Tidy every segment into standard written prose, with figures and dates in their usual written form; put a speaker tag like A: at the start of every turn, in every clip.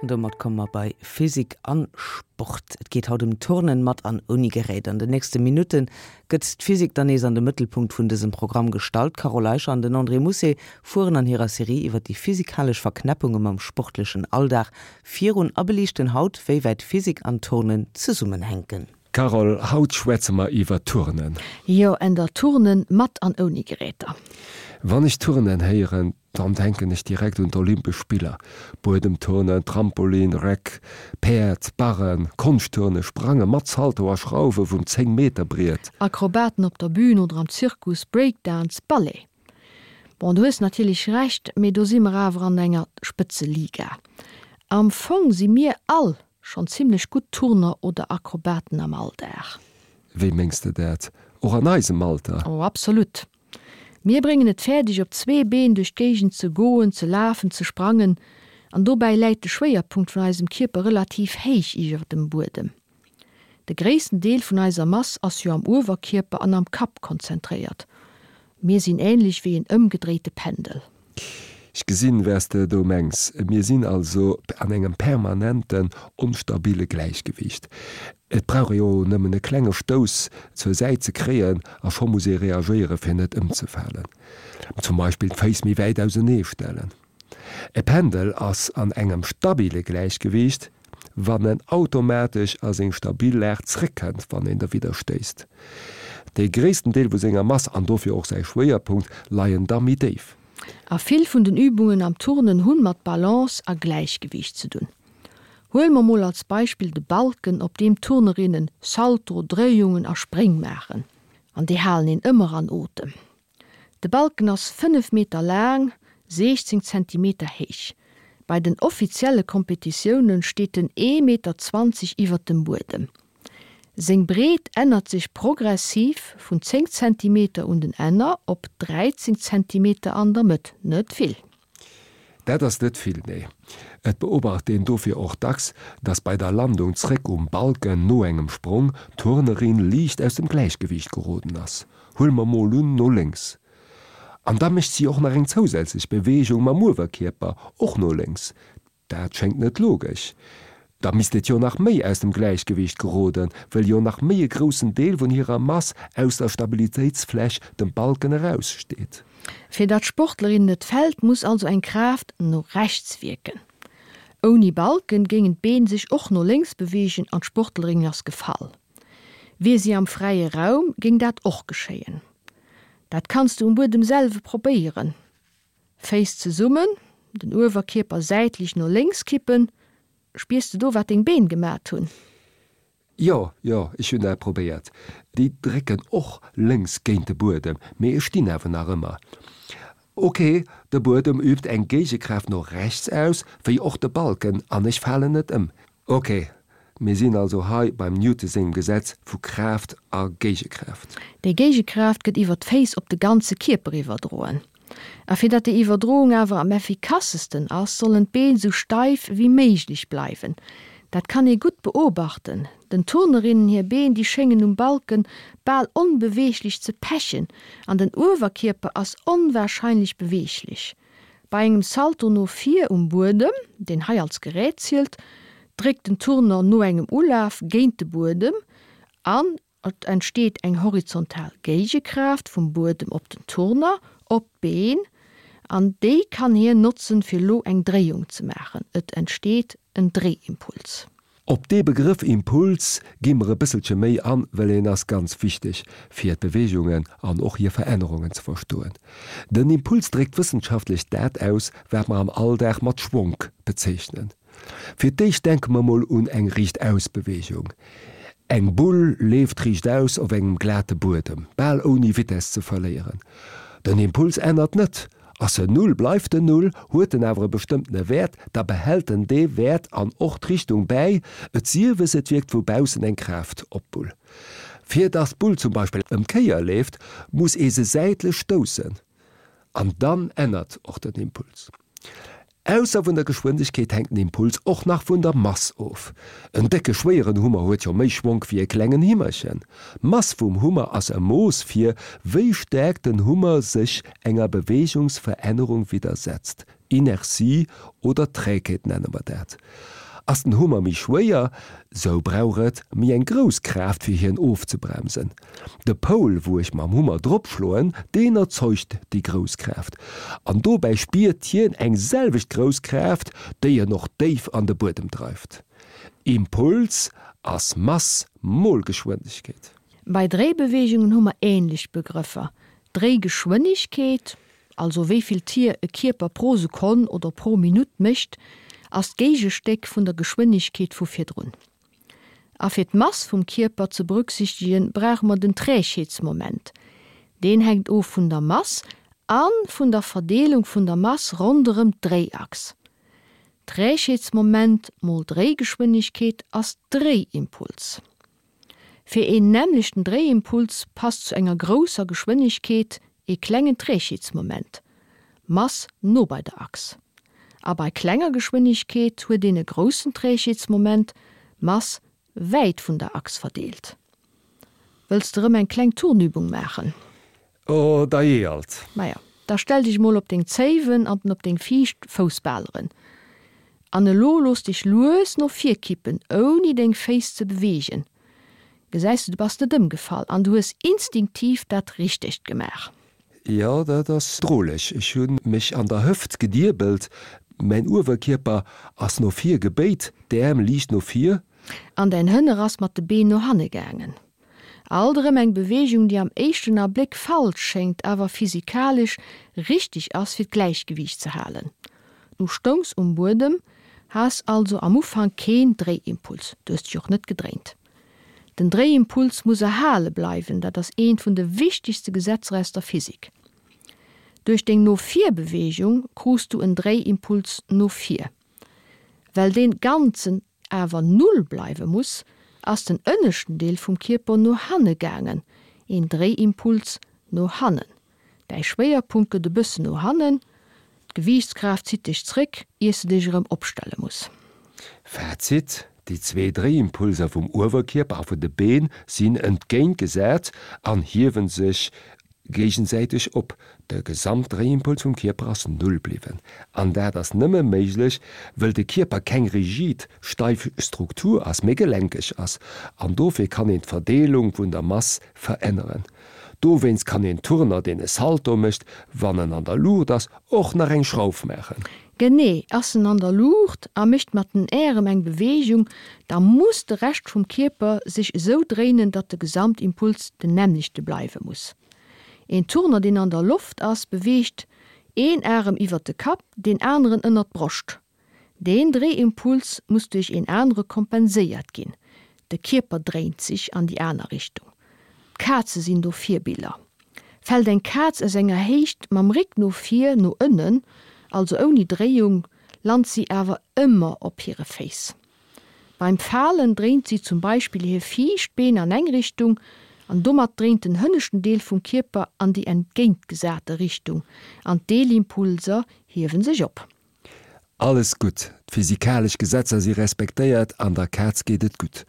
A: An domat komme mer bei Physik an Sport. Et geet haut ëm Turnen mat an ouni Gerät. An den nächste Minutte gëtt d'Physik dann nees an de Mëttelpunkt vun dësem Programm gestallt. D'Carole Eicher an den André Mousset fueren an hirer Serie iwwer déi physikalesch Verknäppunge mam sportlechen Alldag virun a beliichten haut, wéi wäit Physik an Turnen zesummenhänken.
B: Carole, haut schwätze mer iwwer Turnen.
C: Jo, änder Turnen mat an ouni Geräter.
B: Wann ech Turnen héieren, dann denken ech direkt un d'Olympesch Spiller. Buedemturnen, Trampolin, Reck, Päerd, Barren, Konschtturnen, Sprange mat Salto a Schrauwe vum 10 Meter Briet.
C: Akrobaten op der Bühn oder am Zirkus, Breakdance, Ballet. Bon, du hues natierlech Recht, mee do si mer awer an enger Spëtzeliga. Am Fong si mir all schonn zimmlech gutt Turner oder Akrobaten am Alldag.
B: Wéi mengs de dat? Och an eisem Alter?
C: Oh, absolut. Mir bréngen et fäerdeg op zwee Been duerch d'Géigend ze goen, ze lafen, ze sprangen an dobäi läit de Schwéierpunkt vun eisem Kierper relativ héich iwwer dem Buedem. De gréissten Deel vun eiser Mass ass jo am Uewerkierper an am Kapp konzentréiert. Mir sinn änlech wéi en ëmgedréite Pendel.
B: Ech gesinn, wers de do mengs. Mir sinn also an engem permanenten onstabile Gläichgewiicht. Et brauch ee jo nëmmen e klenge Stouss zur Säit ze kréien a scho muss ee reagéiere fir net ëmzefalen. Zum Beispill d'Féiss méi wäit ausenee stellen. E Pendel ass an engem stabile Gläichgewiicht, wann en automatesch a seng stabil Lag zréckkënnt, wann een derwidder stéisst. Dee gréissten Deel vu senger Mass, an dofir och säi Schwéierpunkt, leien da méi déif.
C: A vill vun den Übungen am Turnen hunn mat Balance a Gläichgewiicht ze dunn. Huele mer mol als Beispill de Balken, op deem d'Turnerinnen Salto, Dréiungen a Spréng maachen. An déi halen een ëmmer an Otem. De Balken ass 5 Meter laang, 16 Zentimeter héich. Bei den offizielle Kompetitioune steet en ee Meter 20 iwwert dem Buedem. Seng Breet ännert sech progressiv vun 10 Zentimeter un den Enner op 13 Zentimeter an der Mëtt, net vill.
B: Dat ass net vill, nee. Et beobacht een dofir och dacks, dass bei der Landung zréck um Balken no engem Sprong d'Turnerin liicht aus dem Gläichgewiicht geroden ass. Huele mer mol un, no lénks. An da mécht si och nach eng zousätzlech Beweegung mam Uewerkierper, och no lénks. Dat schéngt net logesch. Da misst et jo nach méi aus dem Gläichgewiicht geroden, wëll jo nach méi e groussen Deel vun hirer Mass aus der Stabilitéitsfläch, dem Balken, eraussteet.
C: Fir datt d'Sportlerin net fält, muss also eng Kraaft no rechts wierken. Ouni Balken géingen d'Been sech och no lénks beweegen an d'Sportlerin ass gefall. Wier si am fräie Raum, géing dat och geschéien. Dat kanns du um Buedem selwe probéieren. Féiss zesummen, den Uewerkierper säitlech no lénks kippen. Spiers de do wat deng Been gemat hunn?
B: Jo, jo, ech hunn dat probéiert. Déi drécken och lénks géint de Buedem, mee ech stinn awer nach ëmmer. Ok, de Buedem übt eng Géigekraaft no rechts aus, wéi och de Balken, an ech falen net ëm. Ok, mir sinn also hei beim Newton sengem Gesetz vu Kraaft a Géigekraaft.
C: Déi Géigekraaft gëtt iwwer d'Féiss op de ganze Kierper iwwerdroen. A fir datt déi Iwwerdroung awer am effikassesten ass, sollen d'Been sou steif wéi méiglech bleiwen. Dat kann ee gutt beobachten, Den Turnerinnen hir Been, déi schéngen um Balken bal onbeweeglech ze pechen an den Uewerkierper ass onwahrscheinlech beweeglech. Bei engem Salto no vir um Buedem, deen hei als Gerät zielt, dréckt den Turner no engem Ulaf géint de Buedem an et entsteet eng horizontal Géigekraaft vum Buedem op den Turner, op d'Been, an déi kann hien notzen, fir lo eng Dréiung ze maachen. Et entsteet en Dréiimpuls.
B: Op dee Begrëff Impuls gi mer e bësselche méi an, well en ass ganz wichteg, fir d'Beweegungen an och hir Verännerungen ze verstoen. Den Impuls dréckt wëssenschaftlech dat aus, wat mer am Alldag mat Schwonk bezeechnen. Fir d'éischt denke mer mol un eng Riichtausbeweegung. Eng Bull leeft riichtaus op engem glate Buedem, bal ouni Vitess ze verléieren. Den Impuls ännert net, Ass en Null, bleift en Null, huet en awer e bestëmmtene Wäert, da behält en dee Wäert an och d'Richtung bäi, et siewes et wierkt vu baussen eng Kraaft op d'Bull. Fir datt d'Bull zum Beispill ëm d'Kéier leeft, muss ee se säitlech stoussen an dann ännert och den Impuls. Ausser vun der Geschwindegkeet hänkt den Impuls och nach vun der Mass of. En décke schwéieren Hummer huet jo méi Schwonk wéi e klengen Himmerchen. D'Mass vum Hummer ass e Mooss fir wéi staark den Hummer sech enger Beweegungsverännerung widdersetzt. Inertie oder Trägheet nenne mer dat. Ass den Hummer méi schwéier, sou brauch et méi eng grouss Kraaft fir hien ofzebremsen. De Poul wou ech mam Hummer drop schloen, deen erzeugt déi grouss Kraaft. An dobäi spiert hien eng selwecht grouss Kraaft, déi en och déif an de Buedem dreift. Impuls ass Mass mol Geschwindegkeet.
C: Bei Dréibeweegungen hu mer ähnlech Begrëffer, Dréigeschwënnegkeet, also wéi vill Tier e Kierper pro Sekonn oder pro Minutt mécht, ass d'Géigestéck vun der Geschwënnegkeet vu virdrun. A fir d'Mass vum Kierper ze berücksichtegen, brauche mer den Trägheetsmoment. Deen hänkt of vun der Mass a vun der Verdeelung vun der Mass ronderëm d'Dréiachs. Trägheetsmoment mol Dréigeschwënnegkeet ass Dréiimpuls. Fir een nämmlechten Dréiimpuls passt zu enger grousser Geschwënnegkeet ee klengen Trägheetsmoment, Mass no bei der Achs. A bei klenger Geschwënnegkeet huet een e groussen Trägheetsmoment, Mass wäit vun der Achs verdeelt. Wëlls de rëm eng kleng Turnübung maachen?
B: Oh, dajee alt.
C: Maja, da stell dech mol op deng Zéiwen an op deng viischt Foussbaleren. An elo looss dech lues no vir kippen, ouni deng Féiss ze beweegen. Gesäis de, du bass net ëmgefall an du hues instinktiv dat Richtegt gemaach.
B: Jo, dat ass droleg. Ech hu mech an der Hëft gediebelt, mäin Uewerkierper ass no vir gebéit, d'Äerm liicht no vir.
C: An däin Hënner ass mat de Been no hanne gaangen. Alt erëm eng Beweegung, déi am éischten Abléck falsch schéngt, awer physikalesch richteg ass, fir d'Gläichgewiicht ze halen. Du stoungs um Buedem, has also am Ufank keen Dréiimpuls, du hues dech och net gedréint. Den Dréiimpuls muss erhale bleiwen, dat ass eent vun de wichtegste Gesetzer aus der Physik. Duerch deng No-vir-Beweegung krus du en Dréiimpuls no vir. Well dee ganzen awer Null bleiwe muss, ass den ënneschten Deel vum Kierper no hanne gaangen, een Dréiimpuls no hannen. Däi Schwéierpunkt gëtt e bëssen no hannen, d'Gewiichtskraaft zitt dech zréck, iers de dech erëm opstelle muss.
B: Fazit, Déi zwee Dréiimpulser vum Uewerkierper a vun de Been sinn entgéintgesat an hiewe sech géigesäiteg op. De Gesamtdréiimpuls vum Kierper ass Null bliwwen. An dat ass nëmme méiglech, wëll de Kierper keng rigid, steif Struktur ass, mee gelenkeg ass. An dofir kann een d'Verdeelung vun der Mass veränneren. Dowéinst kann een Turner, deen e Salto mécht, wann en an der Luucht ass, och nach eng Schrauf maachen.
C: Genee, ass en an der Luucht a mécht mat den Ärem eng Beweegung, da muss de Rescht vum Kierper sech esou dréinen, datt de Gesamtimpuls den nämmlechte bleiwe muss. Een Turner, deen an der Loft ass, beweegt een Arem iwwert de Kapp, deen aneren ënnert d'Broscht. Deen Dréiimpuls muss duerch een anere kompenséiert ginn, de Kierper dréint sech an déi aner Richtung. D'Kaze sinn do Virbiller. Fält eng Kaz aus enger Héicht mam Réck no vir no ënnen, also ouni Dréiung, lant si awer ëmmer op hire Féiss. Beim Falen dréint si zum Beispill hir viischt Been an eng Richtung an domat dréint den hënneschten Deel vum Kierper an déi entgéintgesate Richtung an d'Deelimpulser hiewe sech op.
B: Alles gutt, d'physikalesch Gesetzer si respektéiert an der Kaz geet et gutt.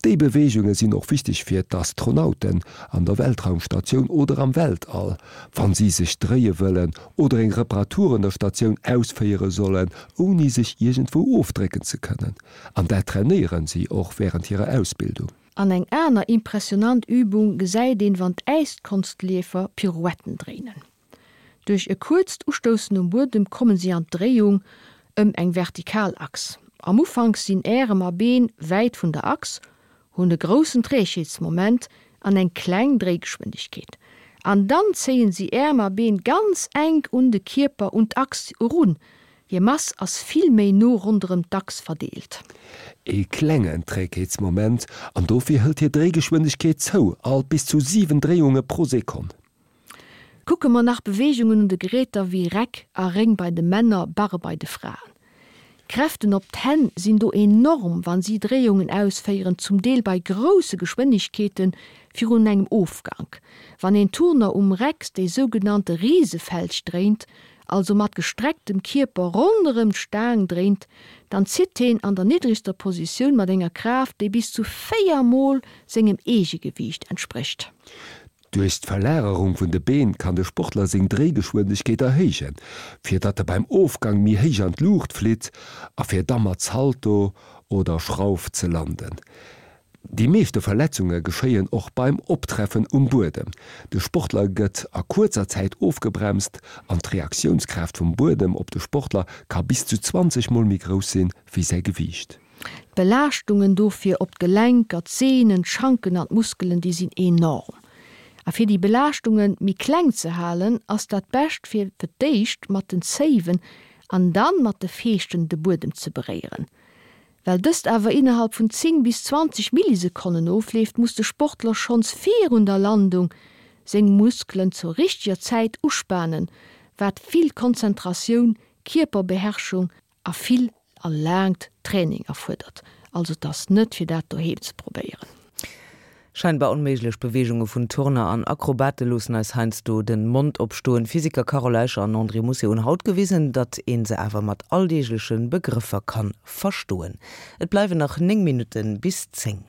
B: Déi Beweegunge sinn och wichteg fir d'Astronauten an der Weltraumstatioun oder am Weltall, wann si sech dréie wëllen oder eng Reparatur un der Statioun ausféiere sollen, ouni sech iergendwou ofdrécken ze kënnen. An dat trainéieren si och wärend hirer Ausbildung.
C: An eng aner impressionant Übung gesäit een, wann d'Äiskonstleefer Pirouetten dréinen. Duerch e kuerzt Ustoussen um Buedem kommen si an d'Dréiung ëm eng vertikal Achs. Am Ufank sinn Ärem a Been wäit vun der Achs, hunn e groussen Trägheetsmoment an eng kleng Dréigeschwindegkeet. An dann zéien si Äerm a Been ganz enk un de Kierper, un d'Achs erun. Hir Mass ass vill méi no ronderëm d'Achs verdeelt.
B: E klengen Trägheetsmoment, an dofir hëlt hir Dréigeschwindegkeet zou, alt bis zu 7 Dréiunge pro Sekonn.
C: Kucke mer nach Beweegungen un de Geräter wéi Reck a Réng bei de Männer, Barre bei de Fraen. D'Kräften op d'Hänn sinn do enorm, wann si Dréiungen ausféieren, zum Deel bei grousse Geschwënnegkeete virun engem Ofgank. Wann een Turner um Reck déi sougenannte Risefelch dréint, also mat gestrecktem Kierper ronderëm d'Staang dréint, dann zitt heen an der niddregster Positioun mat enger Kraaft, déi bis zu 4 mol sengem Eegegewiicht entsprécht.
B: Duerch d'Verlagerung vun de Been kann de Sportler seng Dréigeschwindegkeet erhéijen, fir datt e beim Ofgang méi héich an d'Luucht flitt a fir da mat Salto oder Schrauf ze landen. Déi meeschte Verletzunge geschéien och beim Optreffen um Buedem. De Sportler gëtt a kuerzer Zäit ofgebremst an d'Reaktiounskraaft vum Buedem op de Sportler ka bis zu 20 mol méi grouss sinn wéi säi Gewiicht.
C: D'Belaaschtungen dofir op d'Gelenker, d'Seenen, d'Schanken an d'Muskelen, déi sinn enorm. A fir déi Belaaschtunge méi kleng ze halen, ass dat bescht fir fir d'éischt mat den Zéiwen an dann mat de Feeschten de Buedem ze beréieren. Well dëst awer innerhalb vun 10 bis 20 Millisekonnen ofleeft, muss de Sportler schonns virun der Landung seng Muskelen zur richteger Zäit uspanen, wat vill Konzentratioun, Kierperbeherrschung a vill a laangt Training erfuerdert. Also et ass net fir dat doheem ze probéieren.
A: Scheinbar onméiglech Beweegunge vun Turner an Akrobate loossen eis heiansdo den Mond opstoen. D'Physiker Carole Eicher an André Mousset hunn haut gewisen, datt een se awer mat alldeegleche Begrëffer kann verstoen. Et bleiwen nach 9 Minutten bis 10.